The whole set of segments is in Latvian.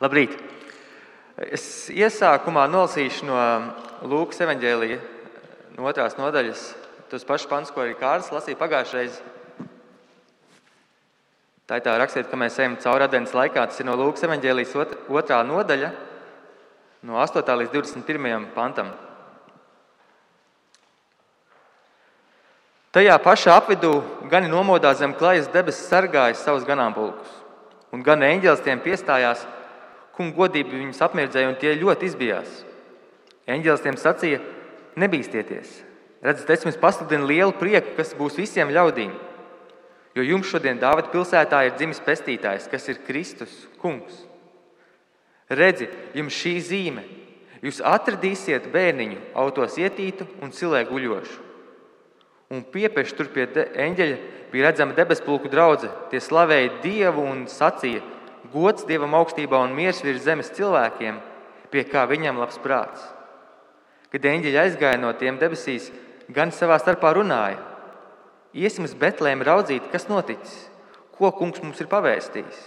Labrīt! Es iesākumā nolasīšu no Lūkas evaņģēlija, no 2. nodaļas, tos pašus pantus, ko arī Kārlis lasīja pagājušajā reizē. Tā ir tā rakstiet, ka mēs ejam cauri adventas laikā. Tas ir no Lūkas evaņģēlijas 2. nodaļa, no 8. līdz 21. pantam. Tajā pašā apvidū gani nomodā zem klajas debesis sargāja savus ganāmpulkus, un gan eņģelis tiem piestājās, kunga godība viņus apmirdzēja, un tie ļoti izbijās. Eņģelis tiem sacīja: nebīsties! Redzat, es jums pasludinu lielu prieku, kas būs visiem ļaudīm, jo jums šodien Dāvida pilsētā ir dzimis pestītājs, kas ir Kristus, kungs. Redzi, jums šī zīme: jūs atradīsiet bērniņu autos ietītu un cilē guļošu. Un piepieši tur pie eņģeļa bija redzama debespulku draudze. Tie slavēja Dievu un sacīja: gods Dievam augstībā un miers virs zemes cilvēkiem, pie kā viņam labs prāts. Kad eņģeļi aizgāja no tiem debesīs, gan savā starpā runāja: iesim uz Betlēmu raudzīt, kas noticis, ko kungs mums ir pavēstījis.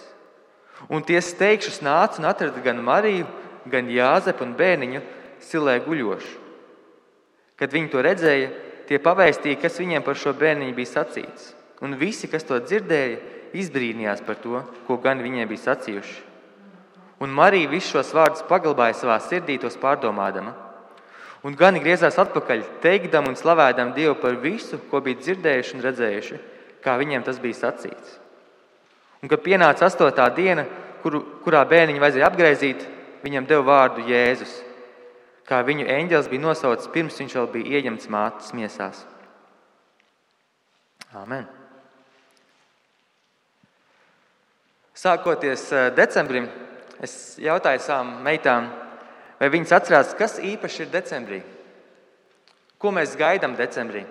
Un tie steigšus nāca un atrada gan Mariju, gan Jāzepu un bērniņu cilē guļošu. Kad viņi to redzēja, tie pavēstīja, kas viņiem par šo bērniņu bija sacīts. Un visi, kas to dzirdēja, izbrīnījās par to, ko gan viņiem bija sacījuši. Un Marija visus šos vārdus paglabāja savā sirdī, tos pārdomādama. Un gani griezās atpakaļ, teikdam un slavēdam Dievu par visu, ko bija dzirdējuši un redzējuši, kā viņiem tas bija sacīts. Un kad pienāca 8. diena, kurā bērniņu vajadzēja apgraizīt, viņam deva vārdu Jēzus, kā viņu eņģelis bija nosaucis pirms viņš vēl bija ieņemts mātes miesās. Āmen. Sākoties decembrim, es jautāju savām meitām, vai viņas atcerās, kas īpaši ir decembrī. Ko mēs gaidām decembrī?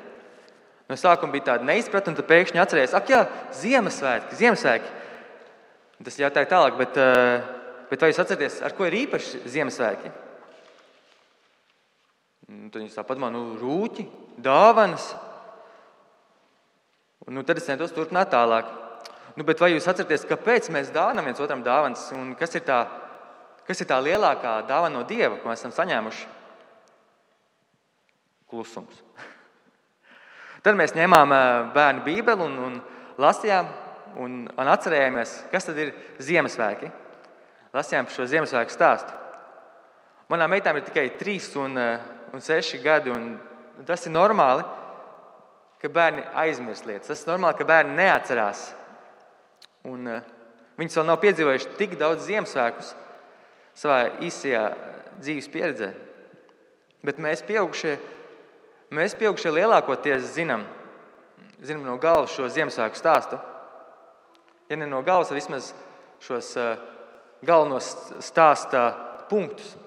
No sākuma bija tāda neizpratne, un tad pēkšņi atcerējās: ak jā, Ziemassvētki. Tas jautāja tālāk, bet vai jūs atceraties, ar ko ir īpaši Ziemassvētki? Tad viņi tā padomā: rūķi, dāvanas. Tad es centos turpināt tālāk. Bet vai jūs atceraties, kāpēc mēs dāvinām viens otram dāvanas? Un kas ir tā lielākā dāvana no Dieva, ko mēs esam saņēmuši? Klusums. Tad mēs ņēmām bērnu bībeli un lasījām un atcerējāmies, kas tad ir Ziemassvētki. Lasījām par šo Ziemassvētku stāstu. Manām meitām ir tikai 3 un 6 gadi, un tas ir normāli, ka bērni aizmirst lietas. Tas ir normāli, ka bērni neatcerās. Un viņas vēl nav piedzīvojuši tik daudz Ziemassvētkus savā īsajā dzīves pieredzē. Bet mēs pieaugušie lielākoties zinām no galvas šo Ziemassvētku stāstu. Ja ne no galvas, tad vismaz šos galvenos stāsta punktus.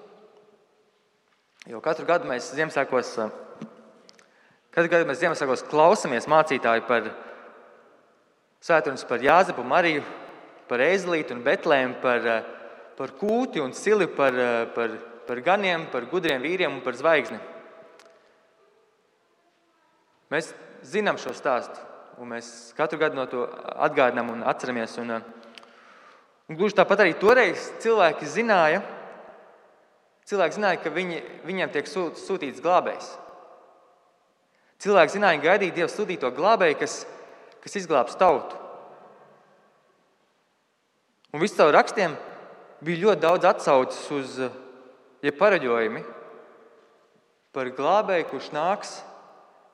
Jo katru gadu mēs Ziemassvētkos klausamies mācītāju par svētrunas par Jāzepu, Mariju, par ēzelīti un Betlēmu, par kūti un sili, par ganiem, par gudriem vīriem un par zvaigzni. Mēs zinām šo stāstu, un mēs katru gadu no to atgādinām un atceramies. Un gluži tāpat arī toreiz cilvēki zināja, ka viņiem tiek sūtīts glābējs. Cilvēki zināja, gaidīja Dieva sūtīto glābēju, kas izglābs tautu. Un visu caur rakstiem bija ļoti daudz atsauces uz pareģojumi par glābēju, kurš nāks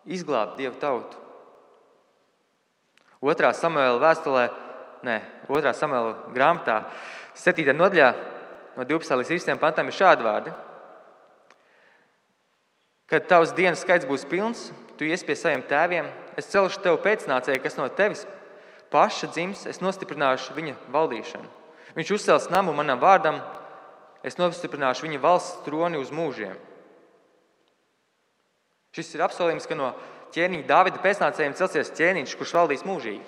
izglābt Dieva tautu. 2. Samuēla grāmatā 7. nodaļā no 12. līdz 13. pantam ir šādi vārdi: kad tavs dienas skaits būs pilns, tu ies pie saviem tēviem, es celšu tev pēcnācēju, kas no tevis paša dzims, es nostiprināšu viņa valdīšanu. Viņš uzcels namu manam vārdam, es nostiprināšu viņa valsts troni uz mūžiem. Šis ir apsolījums, ka no ķēniņa Dāvida pēcnācējiem celsies ķēniņš, kurš valdīs mūžīgi.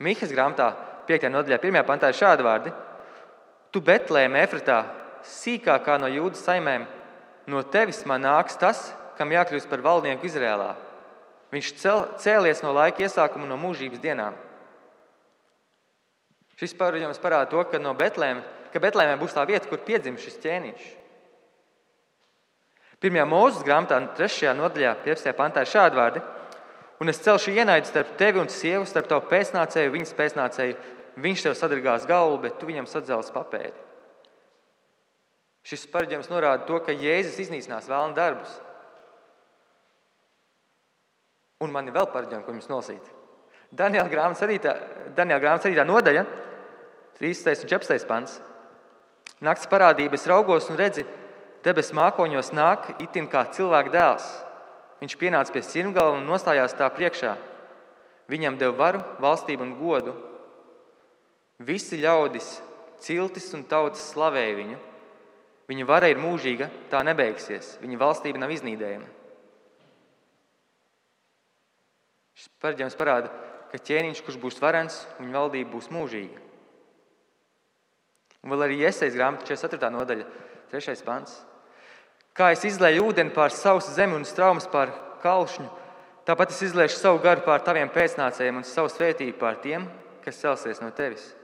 Mihas grāmatā 5. nodaļā 1. pantā ir šādi vārdi: tu Betlēme Efratā, sīkākā no Jūdas saimēm, no tevis man nāks tas, kam jākļūst par valdnieku Izrēlā. Viņš cēlies no laika iesākuma, no mūžības dienām. Šis paradījums parāda to, ka Betlēmē būs tā vieta, kur piedzims šis ķēniņš. 1. Mūzes grāmatā, 3. nodaļā, 15. pantā ir šādi vārdi: un es celšu ienaidu starp tevi un sievu, starp tavu pēcnācēju, viņas pēcnācēju. Viņš tev sadragās galvu, bet tu viņam sadzelsi papēdi. Šis paradījums norāda to, ka Jēzus iznīcinās vēlna darbus. Un man ir vēl paradījumi, ko jums nolasīt. Daniela grāmatas 7. nodaļa, 13. un 14. pants. Nakts parādība, es raugos un redzi, debesu mākoņos nāk itin kā cilvēka dēls. Viņš pienāca pie sirmgala un nostājās tā priekšā. Viņam deva varu, valstību un godu. Visi ļaudis, ciltis un tautas slavēja viņu. Viņa vara ir mūžīga, tā nebeigsies. Viņa valstība nav iznīdējama. Šis paradījums parāda, ka ķēniņš, kurš būs varens, viņa valdība būs mūžīga. Un vēl arī Jesajas grāmata 44. nodaļa, 3. pants. Kā es izlēju ūdeni pār sausu zemi un straumes pār kalšņu, tāpat es izliešu savu garu pār taviem pēcnācējiem un savu svētību pār tiem, kas celsies no tevis.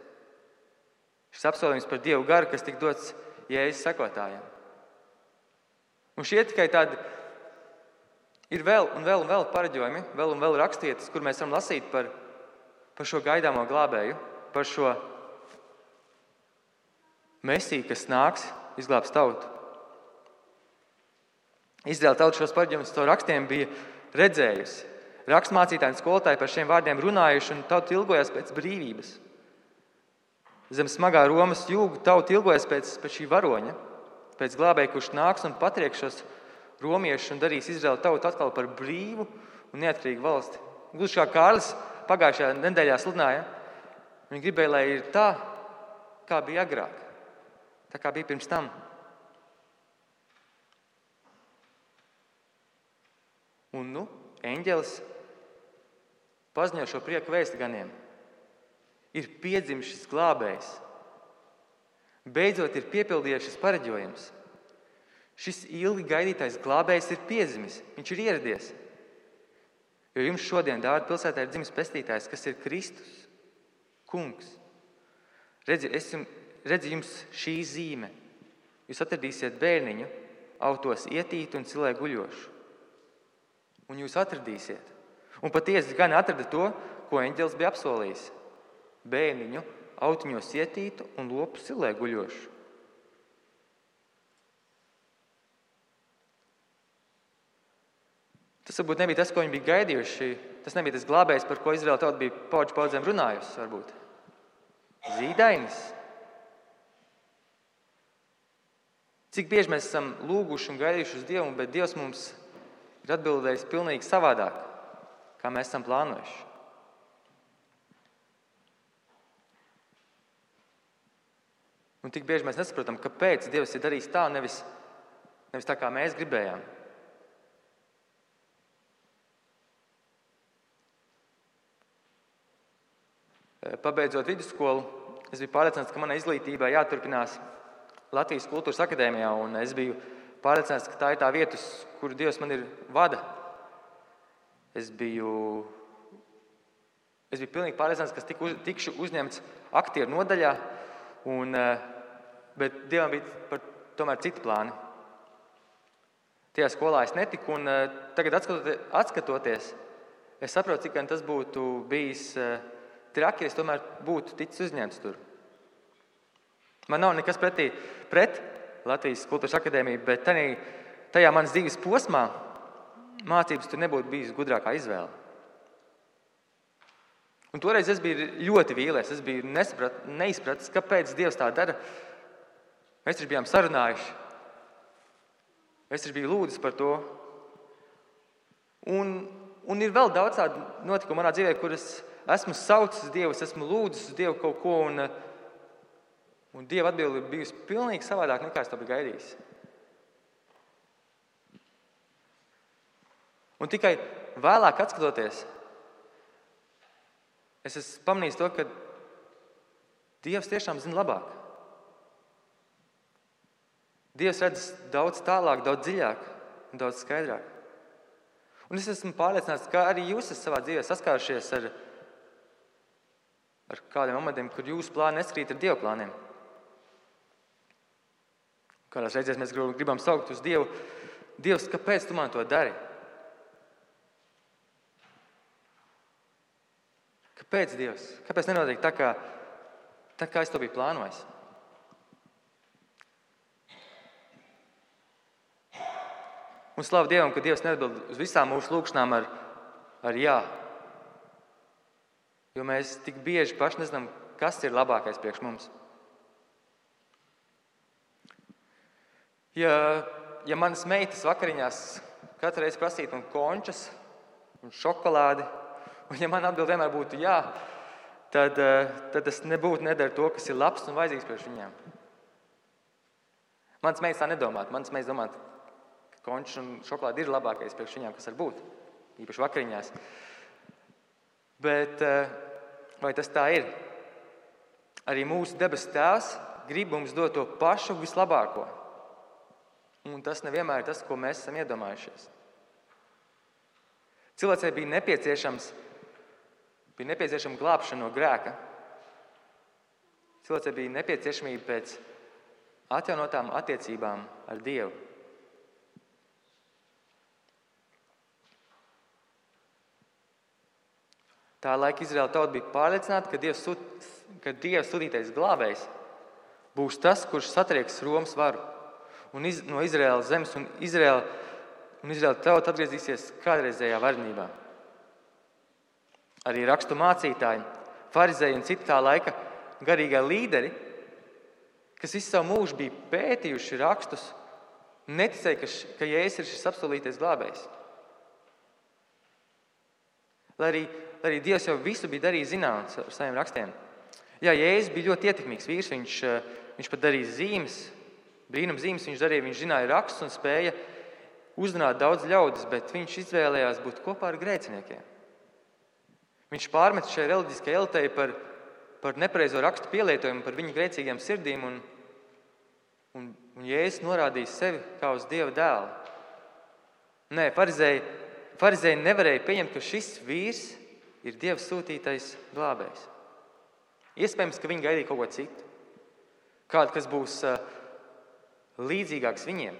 Šis apsolījums par Dievu garu, kas tika dots Jēzus sekotājiem. Un šie tikai tādi ir vēl paradījumi, vēl un vēl raksturvietas, kur mēs varam lasīt par šo gaidāmo glābēju, par šo Mesiju, kas nāks, izglābs tautu. Izraēla tauta šos paradījumus caur rakstiem bija redzējusi. Rakstmācītāji un skolotāji par šiem vārdiem runājuši, un tauta ilgojās pēc brīvības. Zem smagā Romas jūga tauta ilgojas pēc šī varoņa, pēc glābēja, kurš nāks un patrieks šos romiešus un darīs Izraēlu tautu atkal par brīvu un neatkarīgu valsti. Gluži kā Kārlis pagājušajā nedēļā sludināja, viņi gribēja, lai ir tā, kā bija agrāk, tā kā bija pirms tam. Un eņģelis paziņo šo prieku vēsti ganiem. Ir piedzimis šis glābējs. Beidzot ir piepildījies šis pareģojums. Šis ilgi gaidītais glābējs ir piedzimis. Viņš ir ieradies. Jo jums šodien Dāvida pilsētā ir dzimis pestītājs, kas ir Kristus, kungs. Redzi jums šī zīme. Jūs atradīsiet bērniņu, autos ietītu un cilē guļošu. Un jūs atradīsiet. Un patiesi gan atrada to, ko eņģelis bija apsolījis. Bērniņu, autiņos ietītu un lopu silē guļošu. Tas varbūt nebija tas, ko viņi bija gaidījuši. Tas nebija tas glābējs, par ko Izraēla tauta bija paudzēm runājusi, varbūt. Zīdainis. Cik bieži mēs esam lūguši un gaidījuši uz Dievu, bet Dievs mums ir atbildējis pilnīgi savādāk, kā mēs esam plānojuši. Un tik bieži mēs nesaprotam, kāpēc Dievs ir darījis tā, nevis tā, kā mēs gribējām. Pabeidzot vidusskolu, es biju pārliecināts, ka manai izglītībai jāturpinās Latvijas Kultūras akadēmijā, un es biju pārliecināts, ka tā ir tā vieta, uz kuru Dievs man ir vada. Es biju pilnīgi pārliecināts, ka tikšu uzņemts aktieru nodaļā, bet Dievam bija tomēr citi plāni. Tajā skolā es netiku, un tagad atskatoties, es saprotu, cik gan tas būtu bijis traki, ja es tomēr būtu ticis uzņemts tur. Man nav nekas pret Latvijas Kultūras akadēmiju, bet tajā manas dzīves posmā mācības tur nebūtu bijis gudrākā izvēle. Un toreiz es biju ļoti vīlies, es biju neizpratis, kāpēc Dievs tā dara. Mēs taču bijām sarunājuši. Es taču biju lūdzis par to. Un ir vēl daudz tādu notikumu manā dzīvē, kur es esmu saucis Dievu, es esmu lūdzis uz Dievu kaut ko, un Dieva atbilde ir bijusi pilnīgi savādāk, nekā es to biju gaidījis. Un tikai vēlāk atskatoties, es esmu pamanījis to, ka Dievs tiešām zina labāk. Dievs redz daudz tālāk, daudz dziļāk un daudz skaidrāk. Un es esmu pārliecināts, ka arī jūs esat savā dzīvē saskārušies ar ar kādiem momentiem, kur jūsu plāni neskrīt ar Dieva plāniem. Kādās reizēs mēs gribam saukt uz Dievu. Dievs, kāpēc tu man to dari? Kāpēc, Dievs? Kāpēc nenotiek tā, kā es to biju plānojis? Un slavu Dievam, ka Dievs neatbild uz visām mūsu lūkšanām ar jā. Jo mēs tik bieži paši nezinām, kas ir labākais priekš mums. Ja manas meitas vakariņās katru reizi prasītu man končas un šokolādi, un ja man atbild vienmēr būtu jā, tad es nebūtu nedara to, kas ir labs un vajadzīgs priekš viņām. Manas meitas tā nedomātu. Manas meitas domātu, ka končas un šokolādi ir labākais priekš viņām, kas var būt, īpaši vakariņās. Bet vai tas tā ir? Arī mūsu debesu Tēvs grib mums dot to pašu vislabāko. Un tas nevienmēr ir tas, ko mēs esam iedomājušies. Cilvēcei bija nepieciešama glābšana no grēka. Cilvēcei bija nepieciešamība pēc atjaunotām attiecībām ar Dievu. Tā laika Izraēla tauta bija pārliecināta, ka Dieva sūtītais glābējs būs tas, kurš satrieks Romas varu no Izraēlas zemes, un Izraēla tauta atgriezīsies kādreizējā varenībā. Arī rakstu mācītāji, farizēji un citi tā laika garīgā līderi, kas visu savu mūžu bija pētījuši rakstus, neticēja, ka Jēzus ir šis apsolītais glābējs. Lai arī Dievs jau visu bija darījis zināms ar saviem rakstiem. Jā, Jēzus bija ļoti ietekmīgs vīrs, viņš pat darīja zīmes, brīnum zīmes viņš darīja, viņš zināja rakstus un spēja uzrunāt daudz ļaudis, bet viņš izvēlējās būt kopā ar grēciniekiem. Viņš pārmet šai reliģiskajai elitei par nepareizo rakstu pielietojumu, par viņu grēcīgiem sirdīm, un Jēzus norādīja sevi kā uz Dieva dēlu. Nē, farizēji nevarēja pieņemt, ka šis vīrs ir Dieva sūtītais glābējs. Iespējams, ka viņi gaidīja kaut ko citu. Kādu, kas būs līdzīgāks viņiem.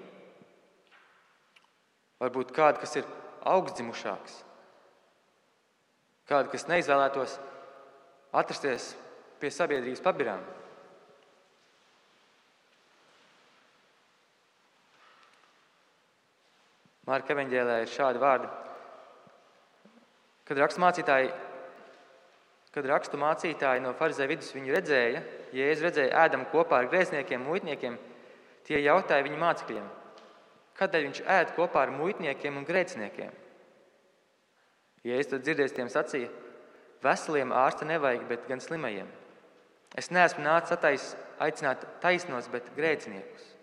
Varbūt kādu, kas ir augstdzimušāks. Kādu, kas neizvēlētos atrasties pie sabiedrības pabirām. Marka evaņģēlijā ir šādi vārdi. Kad rakstu mācītāji no farizēju vidus viņu redzēja, Jēzu redzēja ēdam kopā ar grēciniekiem, muitniekiem, tie jautāja viņa mācekļiem, kādēļ viņš ēd kopā ar muitniekiem un grēciniekiem. Jēzus tad dzirdēs tiem sacīja, veseliem ārsta nevajag, bet gan slimajiem. Es neesmu nācis aicināt taisnos, bet grēciniekus.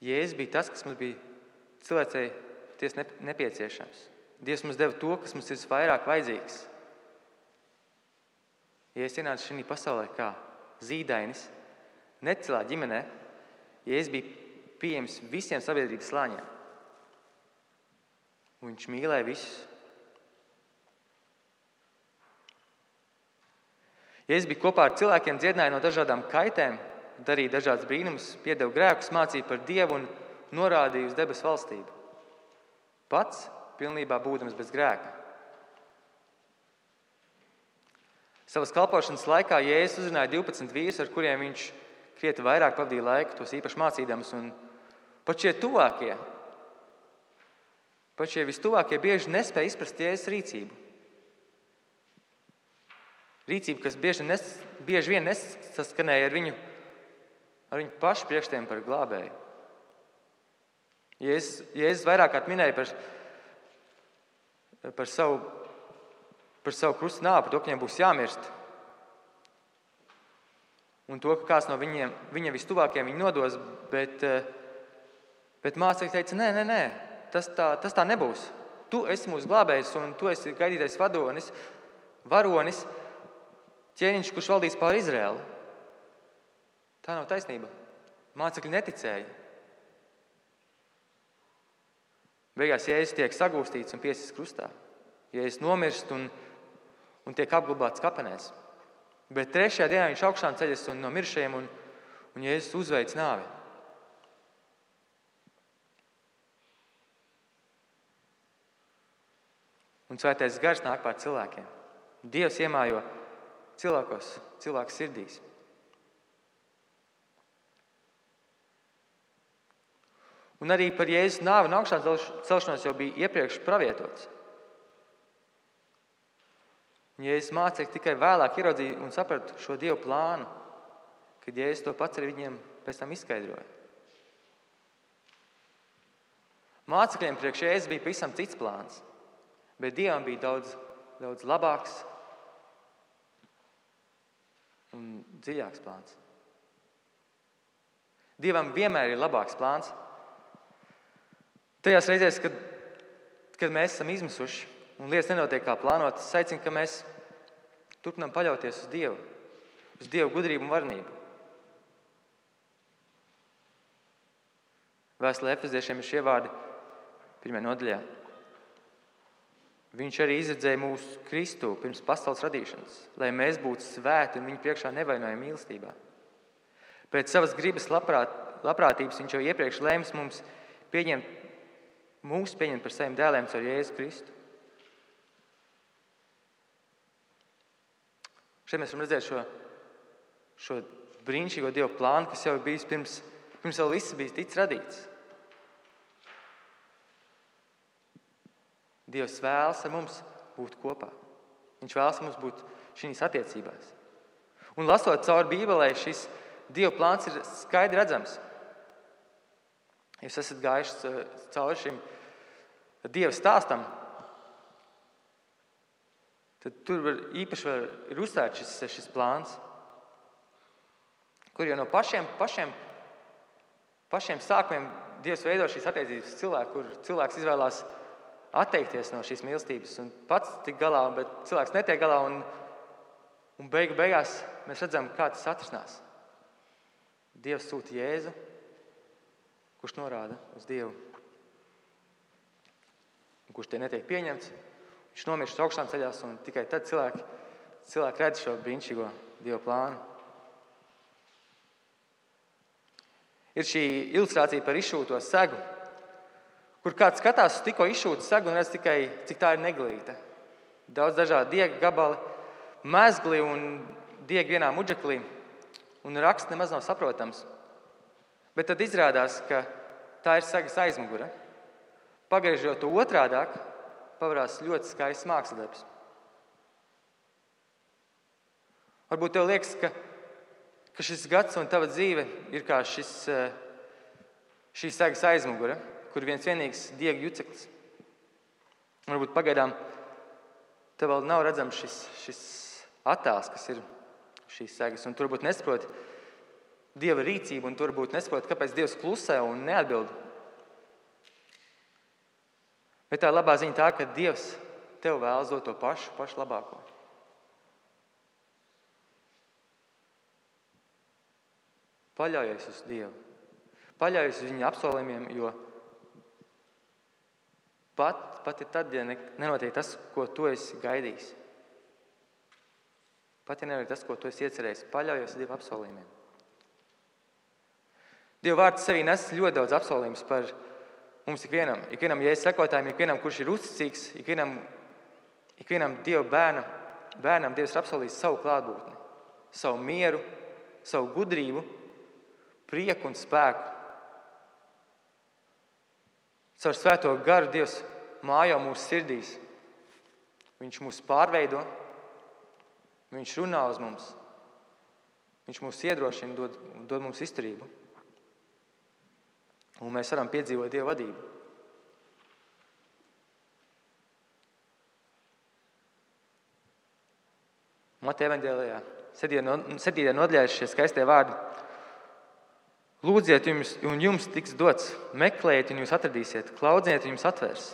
Jēzus bija tas, kas mums bija cilvēcei tiesa nepieciešams. Dievs mums deva to, kas mums ir vairāk vajadzīgs. Jēzus ienāca šajā pasaulē kā zīdainis, necilā ģimenē. Jēzus bija pieejams visiem sabiedrības slāņiem. Un viņš mīlēja visus. Jēzus bija kopā ar cilvēkiem, dziedināja no dažādām kaitēm, darīja dažādas brīnumus, piedeva grēkus, mācīja par Dievu un norādīja uz debesu valstību. Pats pilnībā būdams bez grēka. Savas kalpošanas laikā Jēzus uzrunāja 12 vīrus, ar kuriem viņš krietni vairāk pavadīja laiku, tos īpaši mācīdams. Un pat šie vistuvākie bieži nespēja izprast Jēzus rīcību. Rīcība, kas bieži vien nesaskanēja ar viņu pašu priekšstiem par glābēju. Jēzus vairāk kārt minēja par savu krusta nāvi, par to, ka viņiem būs jāmirst. Un to, ka kāds no viņa vistuvākiem viņu nodos, bet mācekļi teica, nē, tas tā nebūs. Tu esi mūsu glābējs un tu esi gaidītais varonis, ķēniņš, kurš valdīs pār Izraēlu. Tā nav taisnība. Mācekļi neticēja. Beigās Jēzus tiek sagūstīts un piesists krustā. Jēzus nomirst un tiek apglabāts kapenēs. Bet 3. dienā viņš augšām ceļas un no mirušajiem un Jēzus uzveic nāvi. Un Svētais Gars nāk pār cilvēkiem. Dievs iemājo cilvēku sirdīs. Un arī par Jēzus nāvi un augšām celšanos jau bija iepriekš pravietots. Un Jēzus mācekļi tikai vēlāk ieraudzīja un saprata šo Dievu plānu, kad Jēzus to pats arī viņiem pēc tam izskaidroja. Mācekļiem priekš Jēzus bija pavisam cits plāns, bet Dievam bija daudz labāks un dziļāks plāns. Dievam vienmēr ir labāks plāns. Tajās reizēs, kad mēs esam izmisuši un lietas nenotiek kā plānotas, es aicinu, ka mēs turpinām paļauties uz Dievu, uz Dievu gudrību un varenību. Vēstulē Efeziešiem ir šie vārdi 1. nodaļā. Viņš arī izredzēja mūsu Kristu pirms pasaules radīšanas, lai mēs būtu svēti un viņa priekšā nevainojami mīlestībā. Pēc savas gribas labprātības viņš jau iepriekš lēms mūs pieņemt par saviem dēliem caur Jēzu Kristu. Šeit mēs varam redzēt šo brīnišķīgo Dievu plānu, kas jau ir bijis pirms vēl viss bija ticis radīts. Dievs vēlas ar mums būt kopā. Viņš vēlas ar mums būt šīs attiecībās. Un lasot cauri Bībelē, šis Dieva plāns ir skaidri redzams. Jūs esat gājuši cauri šim Dieva stāstam, tad tur īpaši ir uzsvērts šis plāns, kur jau no pašiem sākumiem Dievs veido šīs attiecības cilvēku, kur cilvēks izvēlās atteikties no šīs mīlestības un pats tik galā, bet cilvēks netiek galā un beigās mēs redzam, kā tas atrisinās. Dievs sūta Jēzu, kurš norāda uz Dievu, un kurš tie netiek pieņemts. Viņš nomirst augšām ceļās un tikai tad cilvēki redz šo brīnišķīgo Dieva plānu. Ir šī ilustrācija par izšūto segu, kur kāds skatās uz tikko izšūtu segu un redz tikai, cik tā ir neglīta. Daudz dažādi diega gabali, mezgli un diegi vienā mudžeklī, un raksts nemaz nav saprotams. Bet tad izrādās, ka tā ir segas aizmugure. Pagriežot to otrādāk, pavarās ļoti skaists mākslinieks. Varbūt tev liekas, ka šis gads un tava dzīve ir kā šī segas aizmugure, kur viens vienīgs diega juceklis. Varbūt pagaidām tev vēl nav redzams šis attēls, kas ir šīs segas, un tu varbūt nesaproti Dieva rīcību, un tu varbūt nesaproti, kāpēc Dievs klusē un neatbild. Bet tā labā ziņa tā, ka Dievs tev vēlas dot to pašu labāko. Paļaujies uz Dievu. Paļaujies uz viņa apsolījumiem, jo pat ir tad, ja nenotiek tas, ko tu esi gaidījis. Pat ja nenotiek tas, ko tu esi iecerējis, paļaujies uz Dieva apsolījumiem. Dieva vārds sevī nes ļoti daudz apsolījumus par mums ikvienam Jēzus sekotājiem, ikvienam, kurš ir uzticīgs, ikvienam Dieva bērnam Dievs ir apsolījis savu klātbūtni, savu mieru, savu gudrību, prieku un spēku. Caur Svēto garu Dievs mājo mūsu sirdīs. Viņš mūs pārveido, Viņš runā uz mums, Viņš mūs iedrošina, dod mums izturību. Un mēs varam piedzīvot Dieva vadību. Mateja evaņģēlijā 7. nodaļā šie skaistie vārdi. Lūdziet, un jums tiks dots, meklējiet, un jūs atradīsiet, klaudziet, un jums atvērs.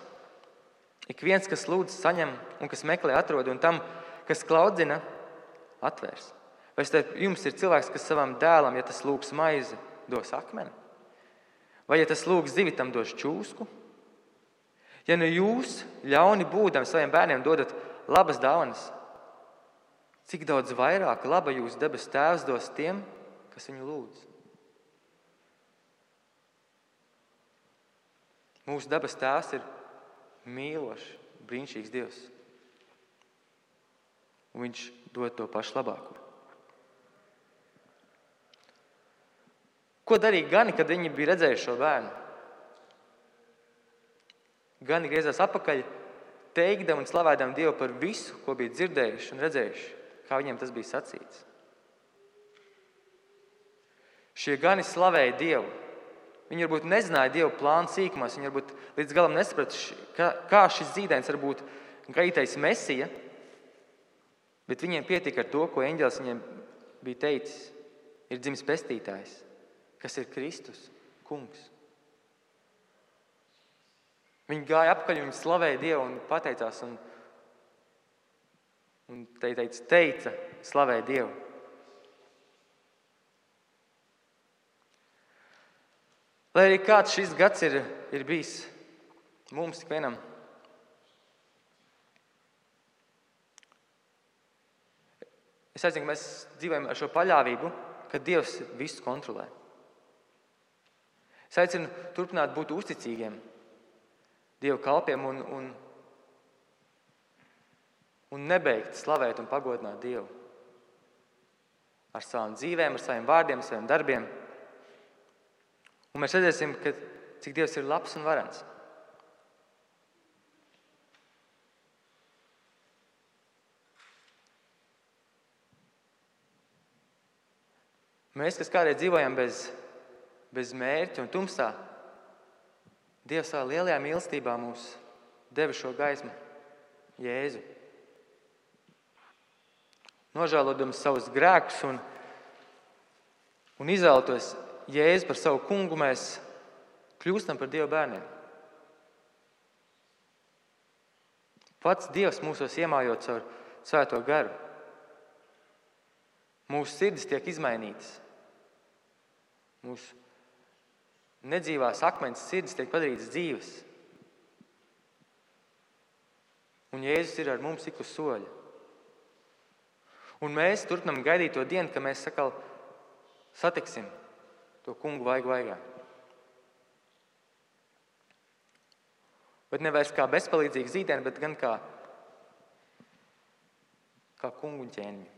Ik viens, kas lūdz, saņem, un kas meklē, atrod, un tam, kas klaudzina, atvērs. Vai starp jums ir cilvēks, kas savam dēlam, ja tas lūgs maizi, dos akmeni? Vai, ja tas lūgs zivi, tam dos čūsku? Ja nu jūs, ļauni būdami, saviem bērniem dodat labas dāvanas, cik daudz vairāk laba jūsu debesu Tēvs dos tiem, kas viņu lūdz? Mūsu debesu Tēvs ir mīlošs, brīnišķīgs Dievs. Un viņš dod to pašu labāko. Ko darīja gani, kad viņi bija redzējuši šo bērnu? Gani griezās atpakaļ, teikdami un slavēdami Dievu par visu, ko bija dzirdējuši un redzējuši, kā viņiem tas bija sacīts. Šie gani slavēja Dievu. Viņi varbūt nezināja Dievu plānu sīkumos, viņi varbūt līdz galam nesaprata, kā šis zīdainis var būt gaidītais Mesija, bet viņiem pietika ar to, ko eņģelis viņiem bija teicis. Ir dzimis pestītājs, kas ir Kristus, kungs. Viņi gāja apakaļ, viņi slavēja Dievu un pateicās un teica, slavēja Dievu. Lai arī kāds šis gads ir bijis mums tik vienam, es aicinu, ka mēs dzīvojam ar šo paļāvību, ka Dievs visu kontrolē. Es aicinu turpināt būt uzticīgiem Dieva kalpiem un nebeigt slavēt un pagodināt Dievu ar savām dzīvēm, ar saviem vārdiem, ar saviem darbiem. Un mēs redzēsim, cik Dievs ir labs un varens. Mēs, kas kādreiz dzīvojam bez mērķa un tumsā, Dievs savā lielajā mīlestībā mums deva šo gaismu, Jēzu. Nožēlodams savus grēkus un izvēlētos Jēzu par savu kungu, mēs kļūstam par Dieva bērniem. Pats Dievs mūsos iemājot caur Svēto garu. Mūsu sirdis tiek izmainītas. Mūsu nedzīvās akmens sirdis tiek padarītas dzīves. Un Jēzus ir ar mums ik uz soļa. Un mēs turpinām gaidīt to dienu, kad mēs sakal satiksim to kungu vaigu vaigā. Bet nevairs kā bezpalīdzīgi zīdēni, bet gan kā kungu un ķēniņu.